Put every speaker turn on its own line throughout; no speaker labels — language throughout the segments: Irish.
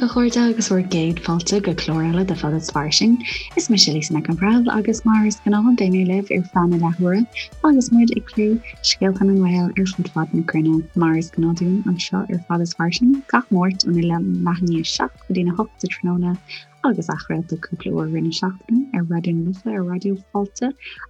a chairde agus bhur gcéad fáilte go clár eile de Fada is Fairsing. Is mise Lisa Nic an Bhreithimh agus mar is gnáth beidh mé libh ar feadh na leathuaire agus muid ag plé scéalta na nGael ar fud fad na cruinne. Mar is gnáth dúinn anseo ar Fada is Fairsing gach Máirt óna leath i ndiaidh 7 go dtína 8 sa tráthnóna agus athchraolta cúpla uair i rith na seachtaine ar Raidió na Life, ar Raidió Fáilte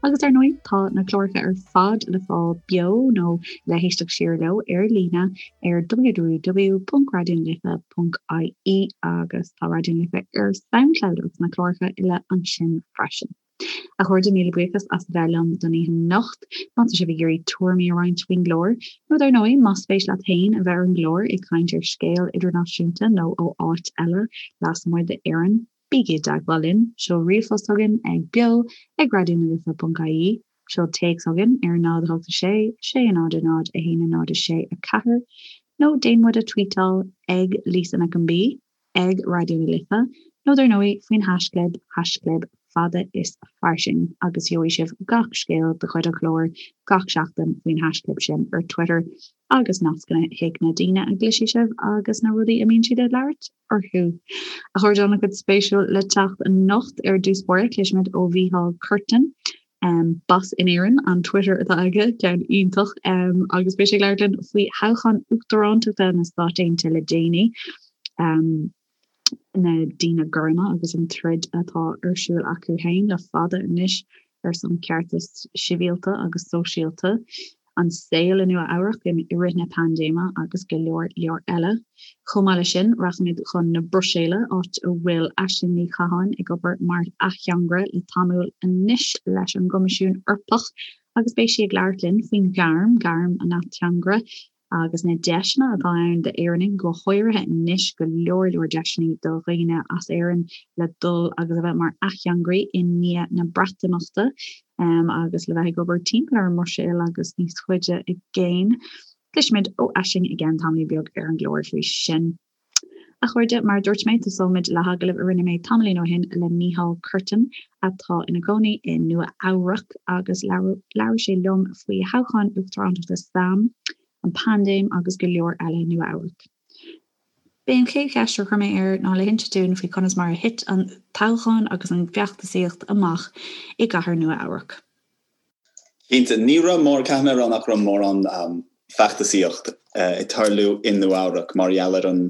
agus ar ndóigh tá na cláracha ar fad le fáil beo nó le héisteacht siar leo ar líne ar www.raidionalife.ie agus tá Raidió na Life ar Soundcloud agus na cláracha uile ansin freisin. A chairde, míle buíochas as a bheith liom don oíche anocht. Má tá sibh ag iarraidh tuairimí a roinnt faoin gclár, nó dar ndóigh, más spéis leat féin a bheith ar an gclár ag caint ar scéal idirnáisiúnta nó ó áit eile lasmuigh d'Éirinn, bígí i dteagmháil linn. Seol ríomhphost chugainn ag beo ag raidionalife.ie, seol téacs chugainn ar 0 8 6 6 0 0 1 0 6 4, nó déan muid a tweetáil ag Lisa Nic an B. ag Raidió na Life, nó dar ndóigh faoin haisclib, haisclib fada is fairsing, agus gheobhaidh sibh gach scéal de chuid an chláir gach seachtain faoin haisclib sin ar Twitter agus nascanna chuig na daoine a gcloisfidh sibh agus na rudaí a mbíonn siad ag labhairt orthu. A chairde, an-chuid spéisiúil le teacht anocht ar dtús báire, cloisfimid ó Mhícheál Curtin, Bas in Éirinn an Twitter atá aige, ceann iontach, agus beidh sé ag labhairt linn faoi thoghchán uachtarántachta na Stát Aontaithe le déanaí, na daoine gorma agus an troid atá ar siúl acu féin le fada anois ar son ceartas sibhialta agus sóisialta. an saol i Nua Eabhrac i rith na paindéime agus go leor leor eile. Chomh maith leis sin, rachaimid chun na Bruiséile, áit a bhfuil Aisling Ní Chatháin ag obair mar ateangaire le tamall anois leis an gCoimisiún Eorpach agus beidh sí ag labhairt linn faoin ghairm, gairm an ateangaire, agus na deiseanna atá ann d'Éireannaigh, go háirithe anois, go leor leor deiseanna do dhaoine as Éirinn le dul agus a bheith mar ateangairí i ndiaidh na Breatimeachta agus le bheith ag obair timpeall ar an mBruiséil agus níos faide i gcéin. Cloisfimid ó Aisling i gceann tamaillín beag ar an gclár faoi sin. A chairde, mar a dúirt mé, tosóimid le hagallamh a rinne mé tamaillín ó shin le Mícheál Curtin, atá ina chónaí i Nua Eabhrac, agus labhair sé liom faoi thoghchán uachtarántachta sam, an paindéim agus go leor eile i Nua Eabhrac. B'é an chéad cheist a chuir mé air ná le hinse dúinn faoi conas mar a thit an toghchán agus an feachtasaíocht amach i gcathair Nua Eabhrac.
Cinnte, ní raibh mór, caithfidh mé a rá nach raibh mórán feachtasaíocht ag tarlú i Nua Eabhrac mar gheall ar an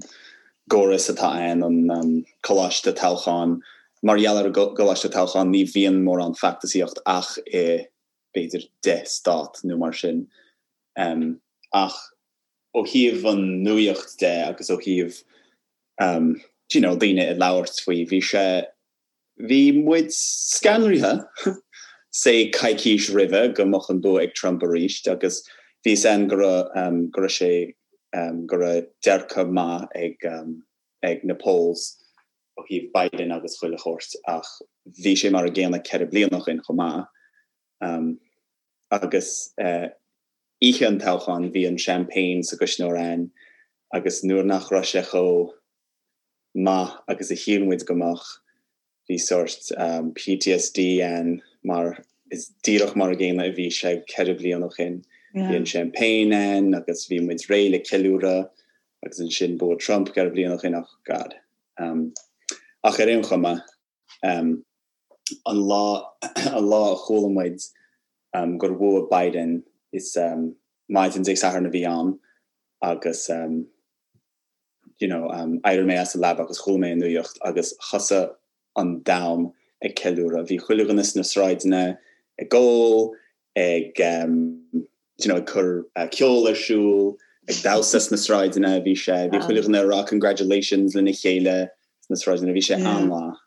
gcóras atá ann, an coláiste toghcháin. Mar gheall ar an gcoláiste toghcháin ní bhíonn mórán feachtasaíocht ach i b'fhéidir 10 stát nó mar sin. Ach ó thaobh an nuaíocht de agus ó thaobh you know daoine ag labhairt faoi, bhí sé Bhí muid scanraithe, say coicís roimhe, go mbeadh an bua ag Trump arís agus bhí fhios a'inn go raibh, go raibh sé, go raibh dearcadh maith ag, ag na polls ó thaobh Biden agus chuile shórt ach bhí sé mar a gcéanna 4 bliana ó shin chomh maith. Agus oíche an toghcháin bhí an champagne sa gcuisneoir a'inn agus nuair nach raibh sé chomh maith agus a shíl muid go mbeadh. Bhí sórt PTSD ann mar is díreach mar a gcéanna a bhí sé 4 bliana ó shin. Bhí an champagne ann agus bhí muid réidh le ceiliúradh agus ansin bua Trump 4 bliana ó shin ach God. Ach ar aon chuma, an lá an lá a chuala muid gur bhuaigh Biden is maidin Dé Sathairn a bhí ann agus you know, d'éirigh mé as an leaba agus chuala mé an nuaíocht agus thosaigh an domhan ag ceiliúradh. Bhí chuile dhuine sna sráideanna ag ól, ag, you know, ag cur ceol ar siúl, ag damhsa sna sráideanna, bhí sé, bhí chuile dhuine ag rá congratulations lena chéile sna sráideanna, bhí sé an-mhaith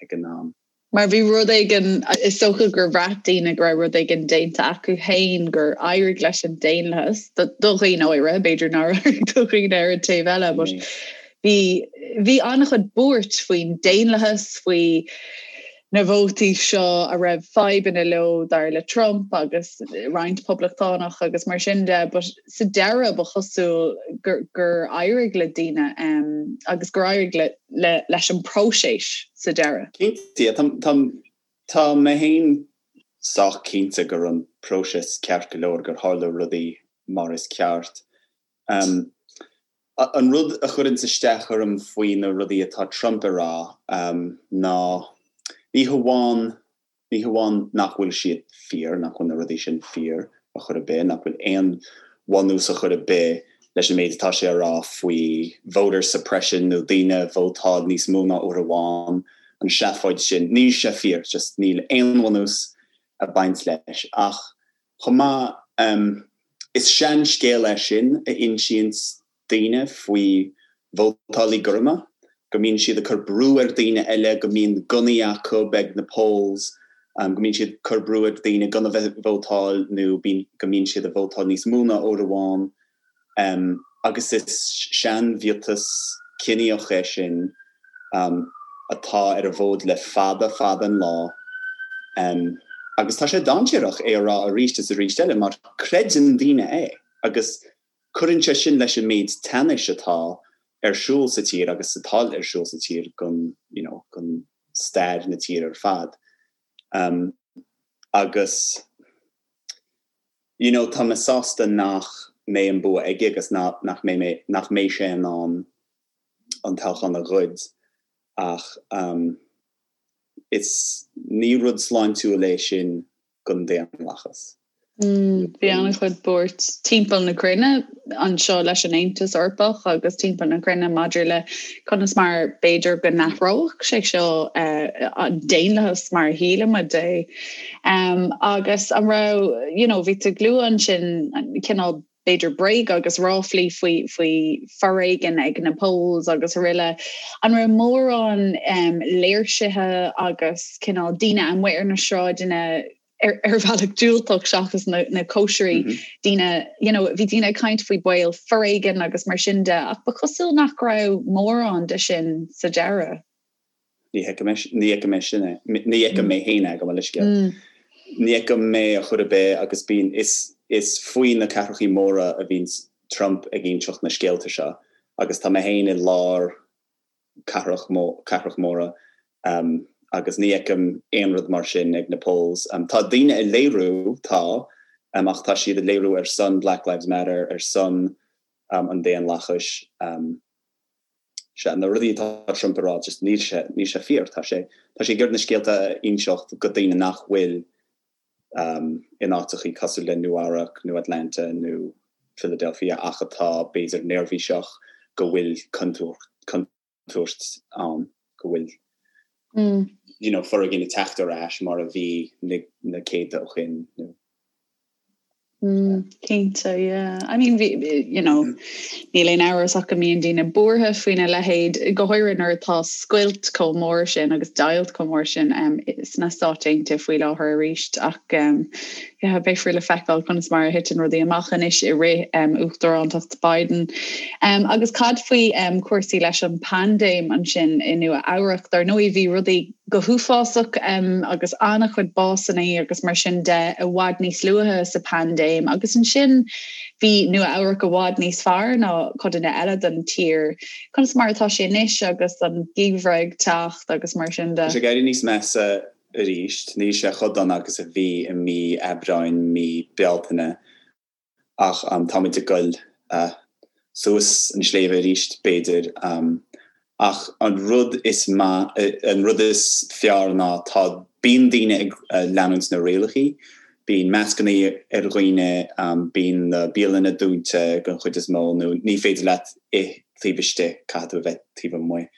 ag an am.
Mar bhí rud éigin, is dócha gur bhraith daoine go raibh rud éigin déanta acu féin, gur éirigh leis an daonlathas, do dhaoine áirithe, b'fhéidir nár éirigh do dhaoine ar an taobh eile, but bhí, bhí an-chuid buairt faoin daonlathas, faoi na vótaí seo a raibh fadhbanna leo dar le Trump agus roinnt poblachtánach agus mar sin de, but sa deireadh ba chosúil gur, gur éirigh le daoine agus gur éirigh le, le, leis an bpróiseas sa deireadh.
Cinnte, tá, tá, tá mé féin sách cinnte go raibh an próiseas ceart go leor, gur tharla rudaí mar is ceart. An rud a chuireanns isteach orm faoi na rudaí atá Trump a rá ná ní hamháin ní hamháin nach bhfuil siad fíor, nach bhfuil na rudaí sin fíor ar chor ar bith, nach bhfuil aon bhunús ar chor ar bith leis an méid atá sé a rá faoi voter suppression nó daoine a vótáil níos mó ná uair amháin, an seafóid sin, níl sé fíor, just níl aon bhunús ag baint leis. Ach chomh maith, is seanscéal é sin a insíonns daoine faoi vótálaí gorma, go mbíonn siad ag cur brú ar daoine eile, go mbíonn gunnaí acu ag na polls, go mbíonn siad ag cur brú ar daoine gan a bheith ag vótáil nó go mbíonn siad ag vótáil níos mó ná uair amháin. Agus is seanmhiotas ciníoch é sin atá ar an bhfód le fada fada an lá. Agus tá sé dainséarach é a rá arís is arís eile mar creideann daoine é agus Cuireann sé sin leis an méid teannais atá ar siúl sa tír agus atá ar siúl sa tír don, you know, don stair na tíre ar fad. Um, agus, you know, tá mé sásta nach mbeidh an bua aige agus nach, nach mbeidh mé, nach mbeidh sé in ann an toghchán a ghoid ach um, is ní rud sláintiúil é sin don daonlathas.
Bhí an-chuid buairt timpeall na cruinne anseo leis an Aontas Eorpach agus timpeall na cruinne maidir le conas mar b'fhéidir go n-athródh sé seo an daonlathas mar a shílimid é. Agus an raibh, you know, bhí tú ag lua ansin cineál b'fhéidir bréaga agus ráflaí faoi faoi foréigean ag na polls agus araile. An raibh mórán léirsithe agus cineál daoine amuigh ar na sráideanna ar ar bhealach diúltach seachas na na cóisirí mm -hmm. daoine you know, bhí daoine ag caint faoi baol foréigean agus mar sin de ach ba chosúil nach raibh mórán de sin sa deireadh.
Ní fheicim mé sin é. Ní fheicim mé féin é, gabh mo leithscéal. Ní fheicim mé ar chor ar bith agus bíonn, is, is faoi na cathrachaí móra a bhíonn Trump ag inseacht na scéalta seo agus tá mé féin i lár cathrach, cathrach móra agus ní fheicim aon rud mar sin ag na polls. Tá daoine ag léiriú, tá, ach tá siad ag léiriú ar son Black Lives Matter, ar son an daonlathais. Sea, na rudaí atá Trump a rá, just níl sé, níl sé fíor. Tá sé, tá sé ag iarraidh na scéalta a inseacht go daoine nach bhfuil in áiteachaí cosúil le Nua Eabhrac nó Atlanta nó Philadelphia ach atá b'fhéidir neirbhíseach go bhfuil contúirt ann, go bhfuil you know, foréigean ag teacht ar ais mar a bhí na, na céadta ó shin nó.
Mm, cinnte, yeah. I mean, bhí, you know, níl aon amhras ach go mbíonn daoine buartha faoina leithéid, go háirithe nuair atá scoilt chomh mór sin agus deighilt chomh mór sin um, sna Stáit Aontaithe faoi láthair arís ach um, yeah, beifear le feiceáil conas mar a thiteann rudaí amach anois i rith um, uachtarántacht Biden. Um, agus cad faoi um, cúrsaí leis an paindéim ansin i Nua Eabhrac, dar ndóigh bhí rudaí go huafásach agus an-chuid básanna agus mar sin de i bhfad níos luaithe sa paindéim agus ansin bhí Nua Eabhrac i bhfad níos fearr ná codanna eile den tír. Conas mar atá sé anois agus an geimhreadh ag teacht agus mar sin de?
Tá sé ag éirí níos measa arís. Níl sé chomh dona agus a bhí i mí Aibreáin, mí Bealtaine. Ach táimid ag goil suas an sléibhe arís, b'fhéidir. Ach an rud is maith, an rud is fearr ná tá, bíonn daoine ag leanúint na rialachaí, bíonn mascanna ar dhaoine, bíonn na bialanna dúnta den chuid is mó nó ní féidir leat ith taobh istigh, caithfidh tú a bheith taobh amuigh.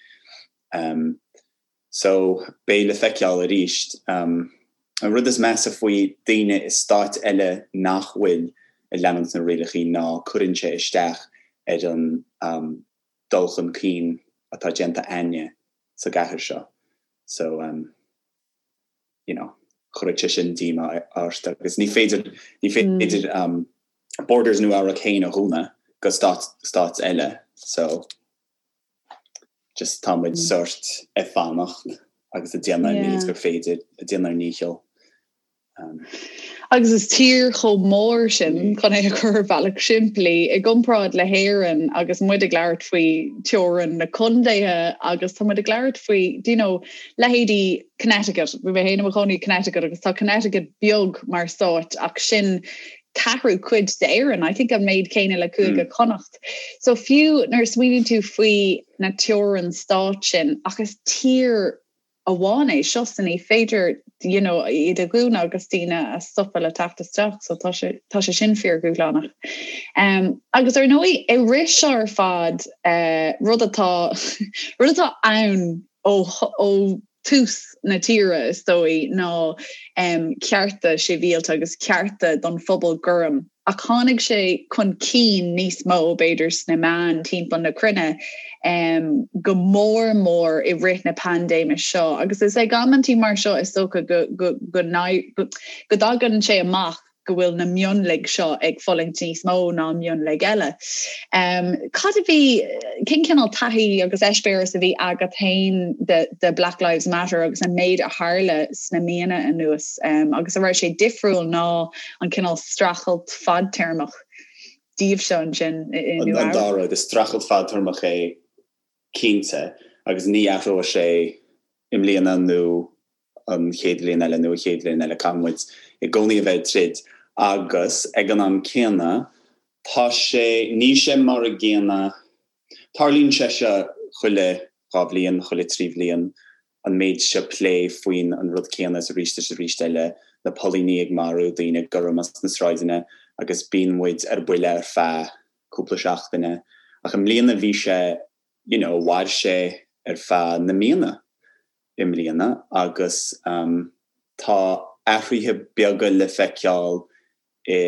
So, beidh le feiceáil arís. An rud is measa faoi daoine i stáit eile nach bhfuil ag leanúint na rialachaí ná cuireann sé isteach ar an dul chun cinn atá déanta a'inne sa gcathair seo. So, you know, chuirfeadh sé sin díomá ort agus ní féidir, ní féidir borders Nua Eabhrac féin a dhúnadh go stáit eile. So. Just tá muid sórt ag fanacht agus ag déanamh an méid gur féidir, ag déanamh ár ndícheall.
Agus is tír chomh mór sin, chun é a chur ar bhealach simplí, i gcomparáid le hÉirinn agus muid ag labhairt faoi teorainn na contaetha agus tá muid ag labhairt faoi, do you know, leithéidí Connecticut, bhí mé féin i mo chónaí i Connecticut agus tá Connecticut beag mar stát ach sin. ceathrú cuid d'Éirinn, I think an méid céanna le Cúige Chonnacht. So fiú nuair a smaoiníonn tú faoi na teorainn stáit sin, ach is tír amháin é seo so ní féidir you know, iad a dhúnadh agus daoine a stopadh le teacht isteach, so tá sé, tá sé sin fíordhúshlánach. Um, agus ar ndóigh, i rith seo ar fad, uh, rud atá rud atá ann ó, ó tús na tíre is dóigh ná um, cearta sibhialta agus cearta don phobal gorm. Ach tháinig sé chun cinn níos mó, b'fhéidir, sna meáin timpeall na cruinne, go mór mór i rith na paindéime seo. Agus is ag amantaí mar seo is dócha go dtagann sé amach go bhfuil na mionlaigh seo ag fulaingt níos mó ná mionlaigh eile. Cad a bhí, cén cineál taithí agus eispéireas a bhí agat féin de de Black Lives Matter agus an méid a tharla sna míonna anuas agus an raibh sé difriúil ná an cineál streachailt fadtéarmach daoibhse ansin
i Nua An dá rud, is streachailt fadtéarmach é cinnte agus ní athróidh sé i mbliana nó an chéad bhliain eile nó an chéad bhliain eile, caithfidh muid i gcónaí a bheith ag troid agus ag an am céanna tá sé, níl sé mar a gcéanna, tarlaíonn sé seo chuile dhá bhliain, chuile thrí bhliain, an méid seo plé faoin an rud céanna is arís is arís eile, na póilíní ag marú daoine gorma sna sráideanna agus bíonn muid ar buile ar feadh cúpla seachtaine ach i mbliana bhí sé you know mhair sé ar feadh na míonna i mbliana agus tá athruithe beaga le feiceáil i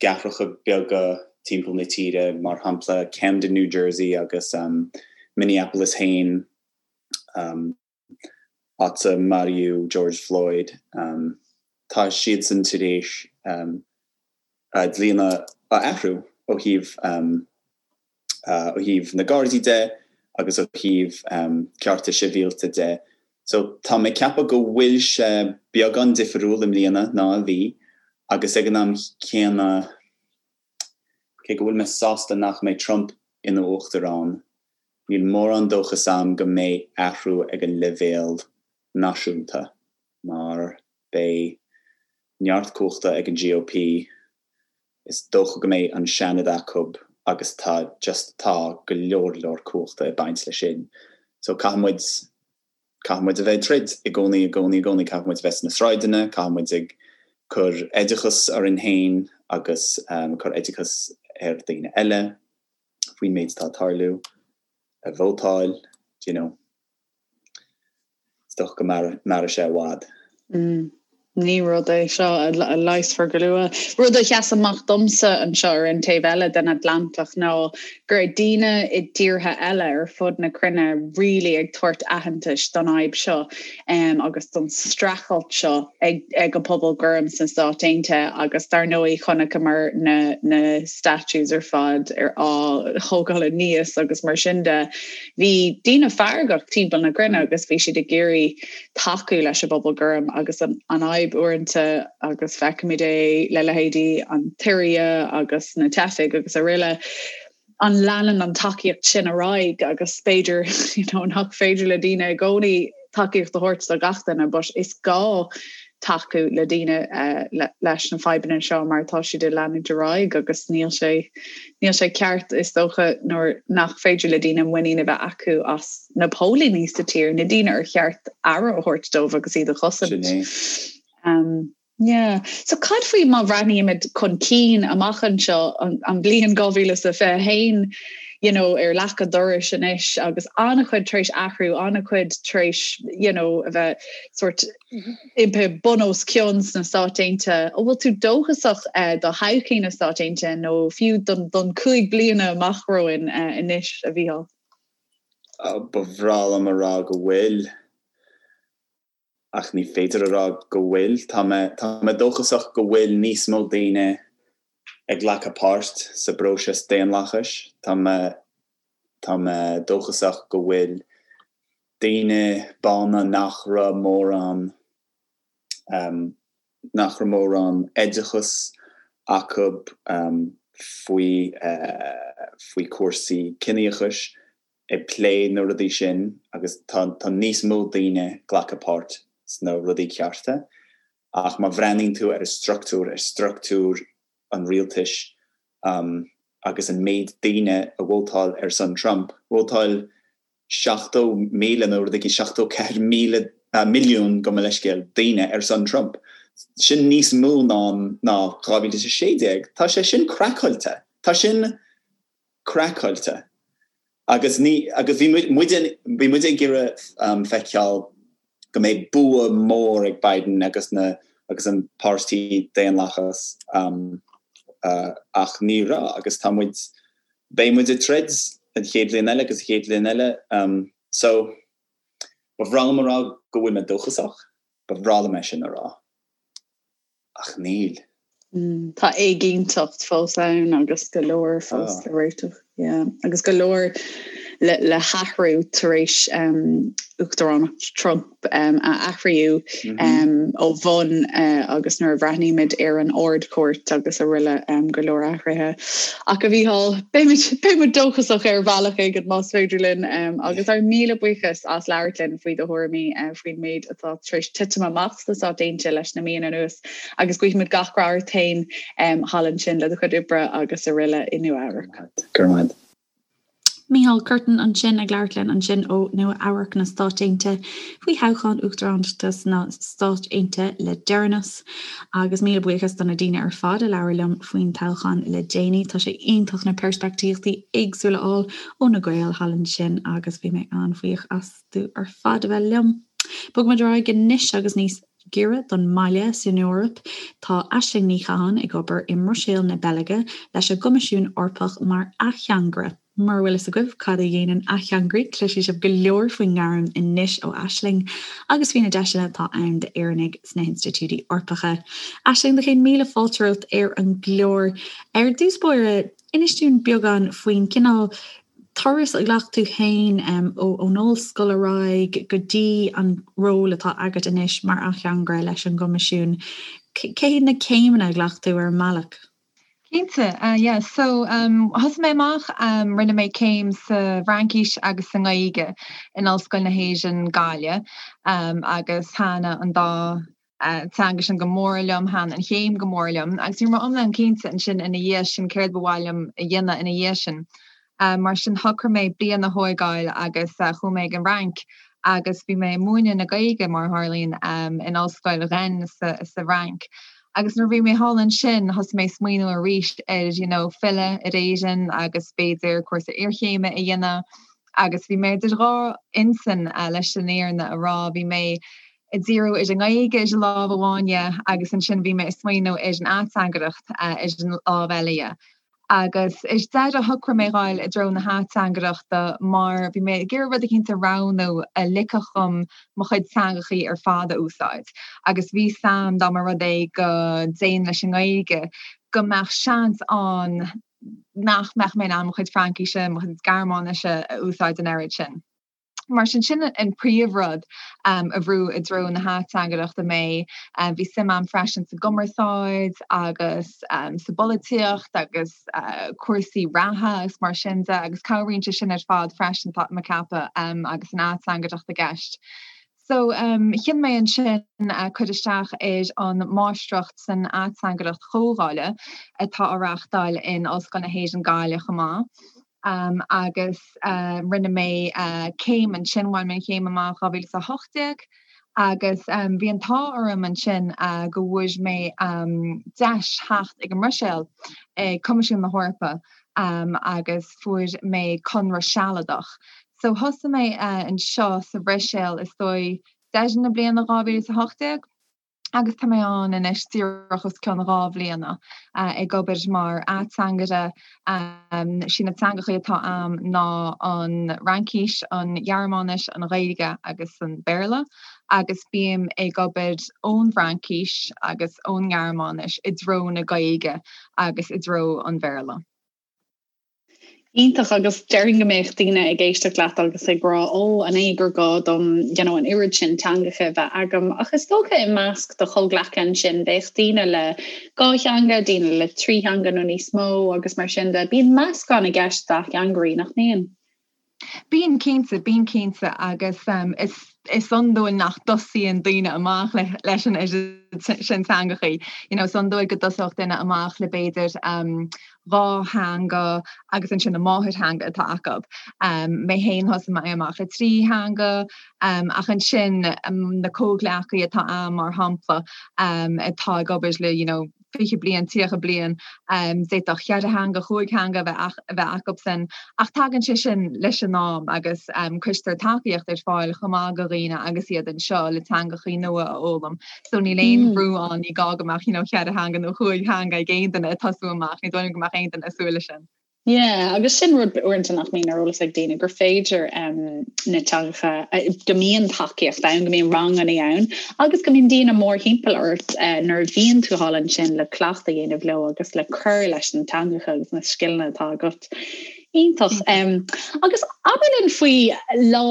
gcathracha beaga timpeall na tíre, mar shampla Camden, New Jersey agus Minneapolis féin, áit a maraíodh George Floyd. Tá siadsan tar éis a dlíthe a athrú ó thaobh ó thaobh na Gardaí de agus ó thaobh cearta sibhialta de. So tá mé ag ceapadh go bhfuil sé beagán difriúil i mbliana ná a bhí agus ag an am céanna cé go bhfuil mé sásta nach mbeidh Trump ina uachtarán, níl mórán dóchas a'm go mbeidh athrú ag an leibhéal náisiúnta mar beidh neart cumhachta ag an GOP Is dócha go mbeidh an Seanad acu agus tá just tá go leor leor cumhachta ag baint leis sin. So caithfidh muid, caithfidh muid a bheith ag troid i gcónaí, i gcónaí, i gcónaí. Caithfidh muid a bheith sna sráideanna, caithfidh muid ag cur oideachas orainn féin agus cur oideachas ar daoine eile faoin méid atá ag tarlú, ag vótáil, do you know. Is dócha go mairfidh sé i
bhfad. Ní rud é seo a leigheasfar go luath. Rud a sheas amach domsa anseo ar an taobh eile den Atlantach ná go raibh daoine i dtíortha eile ar fud na cruinne really ag tabhairt aitheantais don fhadhb seo agus don streachailt seo ag ag an pobal gorm sna Stáit Aontaithe agus dar ndóigh chonaiceamar na na statues ar fad ar á thógáil aníos agus mar sin de. Bhí daoine feargach timpeall na cruinne agus bhí siad ag iarraidh tacú leis an bpobal gorm agus an fhadhb uaireanta agus feicimid é le leithéidí an tSiria agus na teifigh agus araile an leanann an tacaíocht sin ar aghaidh agus b'fhéidir you know, nach féidir le daoine i gcónaí tacaíocht a thabhairt do gach duine but is gá tacú le daoine leis na fadhbanna seo mar tá siad ag leanúint ar aghaidh agus níl sé níl sé ceart is dócha nuair nach féidir le daoine muinín a bheith acu as na póilíní sa tír, na daoine ar cheart aire a thabhairt dóibh agus iad a chosaint.
Sin
é. Yeah. So cad faoi má bhreathnaímid chun cinn amach anseo an, an bhliain 2021 you know, ar leac an dorais anois agus an-chuid tar éis athrú, an-chuid tar éis you know, a bheith sort imithe bun os cionn sna Stáit Aontaithe. An bhfuil tú dóchasach do thodhchaí na Stáit Aontaithe nó fiú don don 5 bliana amach romhainn anois, a Mhícheáil?
Ba bhreá liom a rá go bhfuil, ach ní féidir a rá go bhfuil. Tá mé tá mé dóchasach go bhfuil níos mó daoine ag glacadh páirt sa bpróiseas daonlathais. Tá mé tá mé dóchasach go bhfuil daoine bána nach raibh mórán nach raibh mórán oideachas acu faoi faoi chúrsaí ciníochais ag plé na rudaí sin agus tá tá níos mó daoine ag glacadh páirt sna rudaí cearta ach má bhreathnaíonn tú ar an structúr, ar structúr. an rialtais agus an méid daoine a vótáil ar son Trump, vótáil 70,000 nó rud éigin 74,000 milliún gabh mo leithscéal daoine ar son Trump. Sin níos mó ná ná 2016. Tá sé sin craiceáilte. Tá sin craiceáilte. Agus ní agus bhí muid bhí muid ag iarraidh feiceáil go mbeidh bua mór ag Biden agus na agus an páirtí Daonlathas ach ní raibh agus tá muid beidh muid ag troid an chéad bhliain eile agus an chéad bhliain eile so ba bhreá liom a rá go bhfuil mé dóchasach, ba bhreá liom é sin a rá. Ach níl.
Tá éiginnteacht fós ann agus go leor fós le réiteach. Yeah. Agus go leor le, le hathrú tar éis um, Uachtaránacht Trump um, a athraíodh mm -hmm. um, ó bhun uh, agus nuair a bhreathnaímid ar an Ard-Chúirt agus araile um, go leor athruithe. Ach a Mhícheáil, beimid dóchasach ar bhealach éigin más féidir linn um, agus ár míle buíochas as labhairt linn faoi do thuairimí uh, faoin méid atá tar éis titim amach sna Stáit Aontaithe leis na míonna anuas agus guímid gach rath ort féin thall ansin le do chuid oibre agus araile i Nua Eabhrac.
Go raibh maith.
Mícheál Curtin ansin ag labhairt linn ansin ó Nua Eabhrac na Stáit Aontaithe faoi thoghchán uachtaránachta sna Stáit Aontaithe le deireanas. Agus míle buíochas do na daoine ar fad a labhair liom faoin toghchán le déanaí. Tá sé iontach na peirspictíochtaí éagsúla a fháil ó na Gaeil thall ansin agus bhí mé an-bhuíoch as. astu ar fad a bheith liom. Bogfaimid ar aghaidh anois agus níos giorra don mbaile san Eoraip. Tá Aisling Ní Chatháin ag obair i mBruiséil na Beilge leis an gCoimisiún Eorpach mar ateangaire. Mura bhfuil fhios agaibh cad a dhéanann ateangairí, cloisfidh sibh go leor faoin ngairm anois ó Aisling agus faoi na deiseanna atá ann d'Éireannaigh sna hinstitiúidí Eorpacha. Aisling, do chéad míle fáilte romhat ar an gclár. Ar dtús báire, inis dúinn beagán faoin cineál turas a ghlac tú féin ón ollscoil ar aghaidh go dtí an ról atá agat anois mar ateangaire leis an gCoimisiún. Cé hiad na céimeanna a ghlac tú ar an mbealach?
Cinnte, yeah. So thosaigh mé amach, rinne mé céim sa bhFraincis agus sa nGaeilge in Ollscoil na hÉireann, Gaillimh, agus thaitin an dá teanga sin go mór liom, thaitin an chéim go mór liom agus ní raibh mé iomlán cinnte ansin ina dhiaidh sin céard ba mhaith liom a dhéanamh ina dhiaidh sin. Mar sin shocraigh mé bliain a thóigeáil agus chuaigh mé ag an bhFrainc agus bhí mé ag múineadh na Gaeilge mar a tharlaíonn in ollscoil Rennes sa bhFrainc. Agus nuair a bhí mé thall ansin thosaigh mé ag smaoineamh arís ar you know filleadh ar Éirinn agus b'fhéidir cúrsa iarchéime a dhéanamh agus bhí mé idir dhá intinn leis an fhírinne a rá. Bhí mé ag díriú ar an nGaeilge ar an lámh amháin dhe agus ansin bhí mé ag smaoineamh ar an ateangaireacht ar an lámh eile dhe. Agus ar deireadh shocraigh mé dhul i dtreo na hateangaireachta mar bhí mé ag iarraidh rud eicínt a roghnú a ligfeadh dhom mo chuid teangachaí ar fad a úsáid. Agus bhí 'fhios a'm dá mba rud é go dtéinn leis an nGaeilge go mbeadh seans ann nach mbeadh mé in ann mo chuid Fraincíse, mo chuid Gearmáinise a úsáid an oiread sin. Mar sin, sin an príomhrud a bhrúigh i dtreo na hateangaireachta mé. Bhí suim a'm freisin sa gcumarsáid agus sa bpolaitíocht agus cúrsaí reatha agus mar sin de agus cabhraíonn sé sin ar fad freisin, tá mé ag ceapadh, agus an ateangaireacht i gceist. So, chinn mé ansin cur isteach ar an Máistreacht san Ateangaireacht Chomhdhála atá á reáchtáil in Ollscoil na hÉireann Gaillimh chomh maith. agus rinne mé céim ansin, bhain mé an chéim amach 2018 agus bhí an t-ádh orm ansin go bhfuair mé deis theacht ag an mBruiséil ag Coimisiún na hEorpa agus fuair mé conradh sealadach. So thosaigh mé anseo sa Bhruiséil is dóigh deireadh na bliana 2018. agus tá mé ann anois díreach os cionn 2 bhliana ag obair mar ateangaire. Sí na teangachaí atá a'm ná an Fhraincis, an Ghearmáinis, an Ghaeilge agus an Béarla agus bím ag obair ón bhFraincis agus ón nGearmáinis i dtreo na Gaeilge agus i dtreo an Bhéarla.
Iontach agus déarfainn go mbeadh daoine ag éisteacht leat agus ag rá ó an é gur gá dom you know, an oiread sin teangacha a bheith agam ach is dócha i measc do chomhghleacaithe ansin bheadh daoine le dhá theanga, daoine le trí theanga nó níos mó agus mar sin de. Bíonn meascán i gceist d'ateangairí, nach mbíonn?
Bíonn cinnte, bíonn cinnte agus is is iondúil nach dtosaíonn daoine amach le leis an oiread sin teangachaí. You know, is iondúil go dtosódh duine amach le b'fhéidir 2 theanga agus ansin a máthairtheanga atá acu. Mé féin thosaigh mé amach le 3 theanga ach ansin na comhghleacaí atá a'm mar shampla atá ag obair le you know, 20 bliain, 30 bliain, d'fhéadfadh cheithre theanga, chúig theanga a bheith acusan, ach tagann sé sin leis an am agus cuirtear tacaíocht ar fáil chomh maith do dhaoine agus iad anseo le teangachaí nua a fhoghlaim. So níl aon bhrú ann, ní gá go mbeadh you know cheithre theanga nó chúig theanga ag aon duine ag tosú amach, ní dóigh liom go mbeadh aon duine ag súil leis sin.
Yeah, agus sin rud uaireanta nach mbíonn ar eolas ag daoine, gur féidir na teangacha, go mbíonn tacaíocht ann, go mbíonn ranganna ann agus go mbíonn daoine mórthimpeall ort nuair a bhíonn tú thall ansin le cleachtadh a dhéanamh leo agus le cur leis na teangacha agus na scileanna atá agat. Iontach. Agus abair linn faoi lá,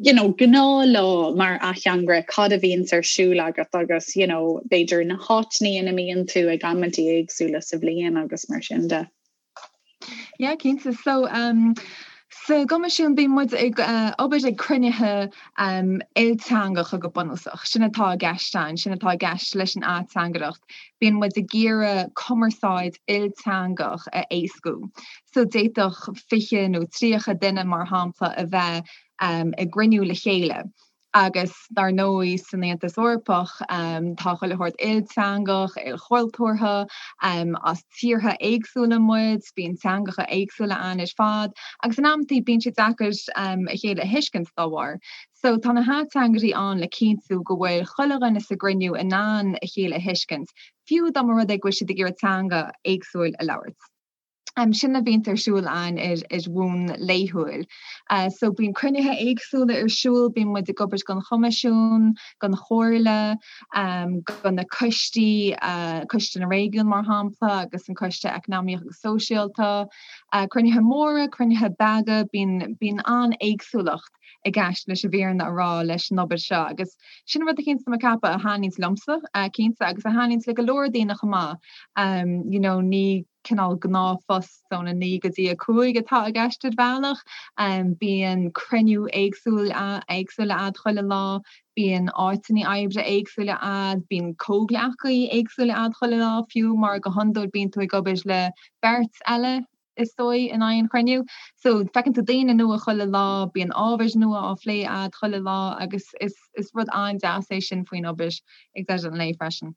you know, gnáthlá mar ateangaire, cad a bhíonns ar siúl agat agus, you know, b'fhéidir na háiteanna ina mbíonn tú ag amantaí éagsúla sa bhliain agus mar sin de.
Yeah, cinnte. So, um, sa gCoimisiún bíonn muid ag uh, obair ag cruinnithe um, ilteangacha go bunúsach. Sin atá i gceist ann, sin atá i gceist leis an ateangaireacht. Bíonn muid ag iarraidh cumarsáid ilteangach a éascú. So d'fhéadfadh 20 nó 30 duine mar shampla a bheith um, ag gcruinniú le chéile. Agus dar ndóigh san Aontas Eorpach tá chuile shórt ilteangach, ilchultúrtha, as tíortha éagsúla muid, bíonn teangacha éagsúla ann ar fad agus in amantaí bíonn sé deacair a chéile a thuiscint dá bharr. So tá na hateangairí ann le cinntiú go bhfuil chuile dhuine sa gcruinniú in ann a chéile a thuiscint, fiú dá mba rud é go bhfuil siad ag iarraidh teanga éagsúil a labhairt. Sin a bhíonns ar siúl ann ar bhonn laethúil. So bíonn cruinnithe éagsúla ar siúl, bíonn muid ag obair don Choimisiún, don Chomhairle, do na coistí, Coiste na Réigiún mar shampla agus an Coiste Eacnamaíoch agus Sóisialta. Cruinnithe móra, cruinnithe beaga, bíonn bíonn an-éagsúlacht i gceist leis an bhfírinne a rá leis an obair seo agus sin rud eicínt tá mé ag ceapadh a thaitníonns liomsa cinnte agus a thaitníonns le go leor daoine chomh maith. You know ní cineál gnáthphost óna 9 go dtí 5 atá i gceist ar bhealach. Bíonn cruinniú éagsúil éagsúla a'd chuile lá, bíonn áiteanna oibre éagsúla a'd, bíonn comhghleacaí éagsúla a'd chuile lá fiú mar go hiondúil bíonn tú ag obair le beirt eile is dóigh, in aon chruinniú. So, feiceann tú daoine nua chuile lá, bíonn ábhair nua á phlé a'd chuile lá agus is is rud an-deas é sin faoin obair ag deireadh an lae freisin.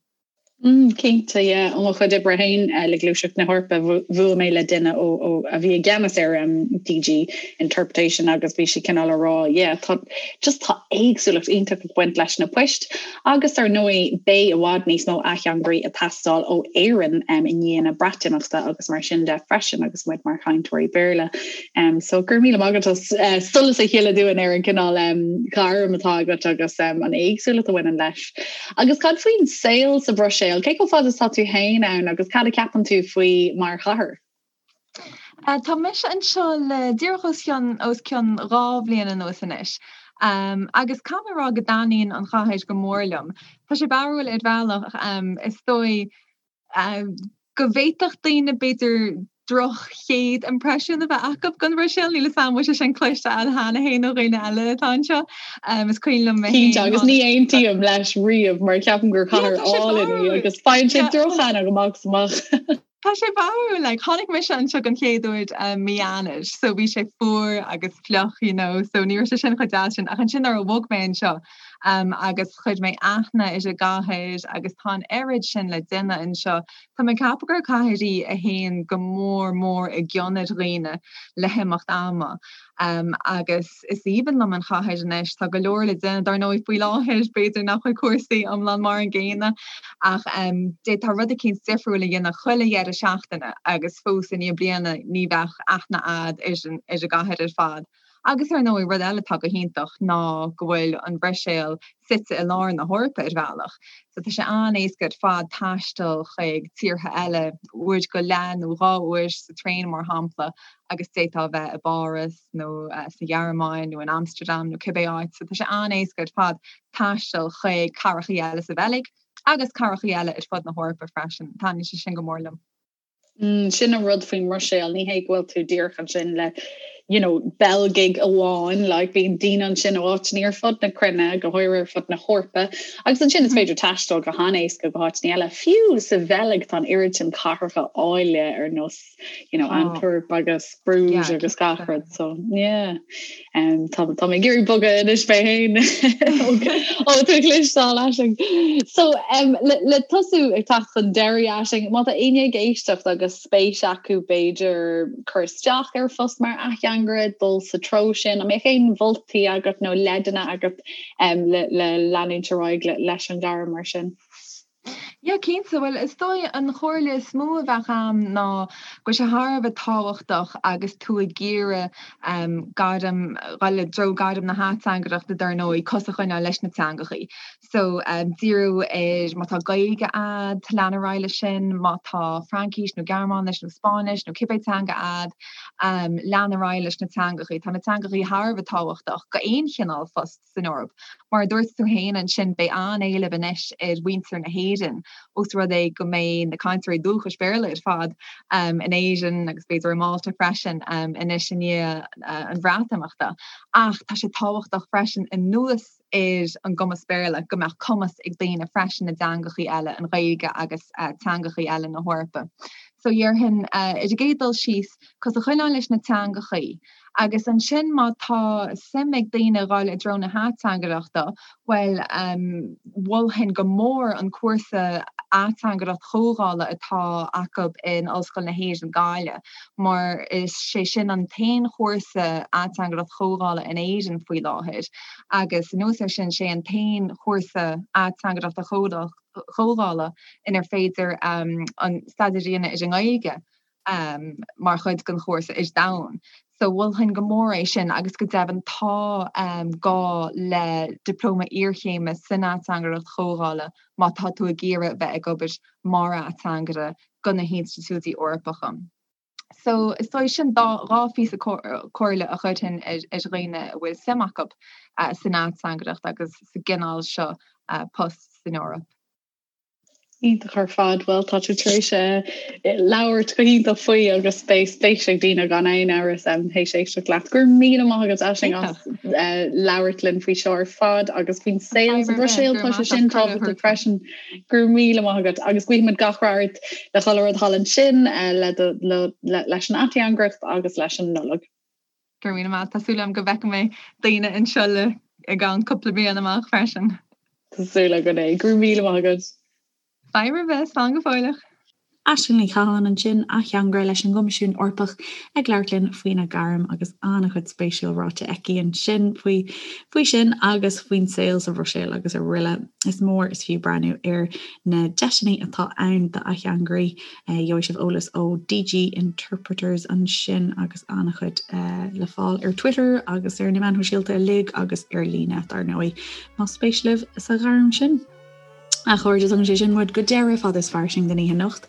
Mm, cinnte, yeah. Ó mo chuid oibre féin le Gluaiseacht na hEorpa, bhuail mé le duine ó, ó, a bhí i gceannas ar um, DG Interpretation agus bhí sí cineál a rá, yeah, tá, just tá éagsúlacht iontach ag baint leis na poist Agus ar ndóigh, beidh i bhfad níos mó ateangairí ag teastáil ó Éirinn i ndiaidh na Breatimeachta agus mar sin de freisin agus muid mar chainteoirí Béarla. So go raibh míle maith agat as solas a shileadh dúinn ar an gcineál gairm atá agat agus an éagsúlacht a bhaineann leis. Agus cad faoin saol sa Bhruiséil? Cé chomh fada is atá tú féin ann agus cad a cheapann tú faoi mar chathair?
Tá mise anseo le díreach os cionn os cionn 2 bhliain anuas anois agus caithfidh mé a rá go dtaitníonn an chathair go mór liom. Tá sé barrúil ar bhealach, is dóigh go bhféadfadh daoine b'fhéidir droch chéad impreisiún a bheith acu den Bhruiséil, níl 'fhios a'm an bhfuil sé sin cloiste a'd cheana féin ó dhaoine eile atá anseo. Is cuimhin liom mé
féin. Cinnte, agus ní aontaím leis riamh mar ceapaim gur cathair álainn í agus faigheann sé drochaithne go maith is amach.
Tá sé barrúil, like, tháinig mise anseo den chéad uair um, mí Eanáir, so bhí sé fuar agus fliuch, you know, so ní raibh sé sin chomh deas sin. Ach ansin nuair a bhog mé anseo um, agus chuir mé aithne ar an gcathair agus tá an oiread sin le déanamh anseo, tá mé ag ceapadh gur cathair í a théann go mór mór i gcion ar dhaoine le himeacht ama. Agus is aoibhinn liom an chathair anois. Tá go leor le déanamh, dar ndóigh, faoi láthair, b'fhéidir nach bhfuil cúrsaí iomlán mar an gcéanna, ach d'fhéadfá rud eicínt difriúil a dhéanamh chuile dheireadh seachtaine agus fós i ndiaidh bliana ní bheadh aithne a'd ar an gcathair ar fad. Agus ar ndóigh, rud eile atá go hiontach ná go bhfuil an Bhruiséil suite i lár na hEorpa ar bhealach. So tá sé an-éasca ar fad taisteal chuig tíortha eile, uair go leith nó 2 uair sa traein mar shampla, agus d'fhéadfá a bheith i bPáras nó sa Ghearmáin nó in Amsterdam nó cibé áit. So tá sé an-éasca ar fad taisteal chuig cathrachaí eile sa Bheilg agus cathrachaí eile ar fud na hEorpa freisin. Taitníonn sé sin go mór liom.
Mm, sin an rud faoin mBruiséil, ní hé go bhfuil tú díreach ansin le. you know, Beilgigh amháin, like bíonn daoine ansin ó áiteanna ar fud na cruinne, go háirithe ar fud na hEorpa, agus ansin is féidir taisteal go han-éasca go háiteanna eile. Fiú sa Bheilg tá an oiread sin cathracha áille ar nós, you know, Antwerp agus Bruges agus gach rud, so yeah. Um, tá tá mé ag iarraidh bogadh anois mé féin ó tú cloisteáil Aisling. So um, le, le tosú ag teacht chun deiridh Aisling, má tá éinne ag éisteacht agus spéis acu b'fhéidir cur isteach ar phost mar ateangaire, dul sa treo sin, an mbeadh aon mholtaí agat nó leideanna agat um, le, le leanúint ar aghaidh le, leis an ghairm mar sin?
Yeah, cinnte. Bhuel, is dóigh an chomhairle is mó a bheadh a'm ná go bhfuil sé thar a bheith tábhachtach agus tú ag iarraidh gairm, dhul i dtreo gairm na hateangaireachta dar ndóigh, cos a choinneáil leis na teangachaí. So, díriú ar, má tá Gaeilge a'd, lean ar aghaidh leis sin, má tá Fraincis nó Gearmáinis nó Spáinnis nó cibé teanga a'd, lean ar aghaidh leis na teangachaí. Tá na teangachaí thar a bheith tábhachtach go aon chineál phost. san Eoraip. Mar a dúirt tú féin ansin, beidh an-éileamh anois ar mhuintir na hÉireann, ós rud é go mbeidh na cainteoirí dúchais Béarla ar fad in Éirinn agus b'fhéidir i Málta freisin anois i ndiaidh an Bhreatimeachta. Ach tá sé tábhachtach freisin anuas ar an gcumas Béarla go mbeadh cumas ag daoine freisin i dteangachaí eile, an Ghaeilge agus teangachaí eile na hEorpa. So dhéarfainn, ar an gcéad dul síos, cos a choinneáil leis na teangachaí. Agus ansin má tá suim ag daoine dhul i dtreo na hateangaireachta, bhuel, mholfainn go mór an cúrsa ateangaireacht chomhdhála atá acu in Ollscoil na hÉireann, Gaillimh, mar is sé sin an t-aon chúrsa ateangaireacht chomhdhála in Éirinn faoi láthair agus anuas air sin, sé an t-aon chúrsa ateangaireachta chomhdhála inar féidir an staidéar a dhéanamh ar an nGaeilge. mar chuid den chúrsa ar domhan. So mholfainn go mór é sin agus go deimhin tá gá le dioplóma iarchéime san ateangaireacht chomhdhála má tá tú ag iarraidh bheith ag obair mar ateangaire do na hinstitiúidí Eorpacha. So is dóigh sin dá dhá phíosa comhairle a chuirfinn ar dhaoine a bhfuil suim acu san ateangaireacht agus sa gcineál seo post san Eoraip.
Iontach ar fad. Bhuel, tá tú tar éis labhairt go hiontach faoi agus beidh spéis ag daoine gan aon amhras théis éisteacht leat. Go raibh míle maith agat Aisling as labhairt linn faoi seo ar fad agus faoin saol sa Bhruiséil tá sé sin tábhachtach freisin. Go raibh míle maith agat agus guímid gach rath ort le chuile rud thall ansin leis an ateangaireacht agus leis an Nollaig.
Go raibh míle maith. Tá súil agam go bhfeicfidh mé daoine anseo le i gceann cúpla bliain amach freisin.
Tá súil againn é. Go raibh míle maith agat.
Fadhb ar bith, slán go fóilleach.
Aisling Ní Chatháin ansin, ateangaire leis an gCoimisiún Eorpach ag labhairt linn faoina gairm agus an-chuid spéisiúil ráite aici ansin faoi faoi sin agus faoin saol sa Bhruiséil agus araile. Is mór is fiú breathnú ar na deiseanna atá ann d'ateangairí. Gheobhaidh sibh eolas ó DG Interpreters ansin agus an-chuid le fáil ar Twitter agus ar na meáin shóisialta uilig agus ar líne, dar ndóigh, más spéis libh sa ghairm sin. A chairde, tugann sé sin muid go deireadh Fada is Fairsing don oíche anocht.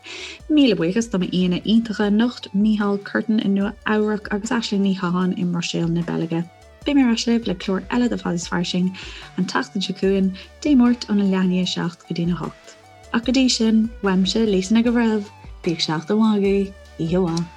Míle buíochas do m'aíonna iontacha anocht, Mícheál Curtin i Nua Eabhrac agus Aisling Ní Chatháin i mBruiséil na Beilge. Beidh mé ar ais libh le clár eile de Fada is Fairsing an tseachtain seo chugainn, Dé Máirt óna leath i ndiaidh a 7 go dtína 8. Ach go dtí sin, uaimse, Lisa Nic an Bhreithimh, bíodh seachtain mhaith agaibh, oíche mhaith.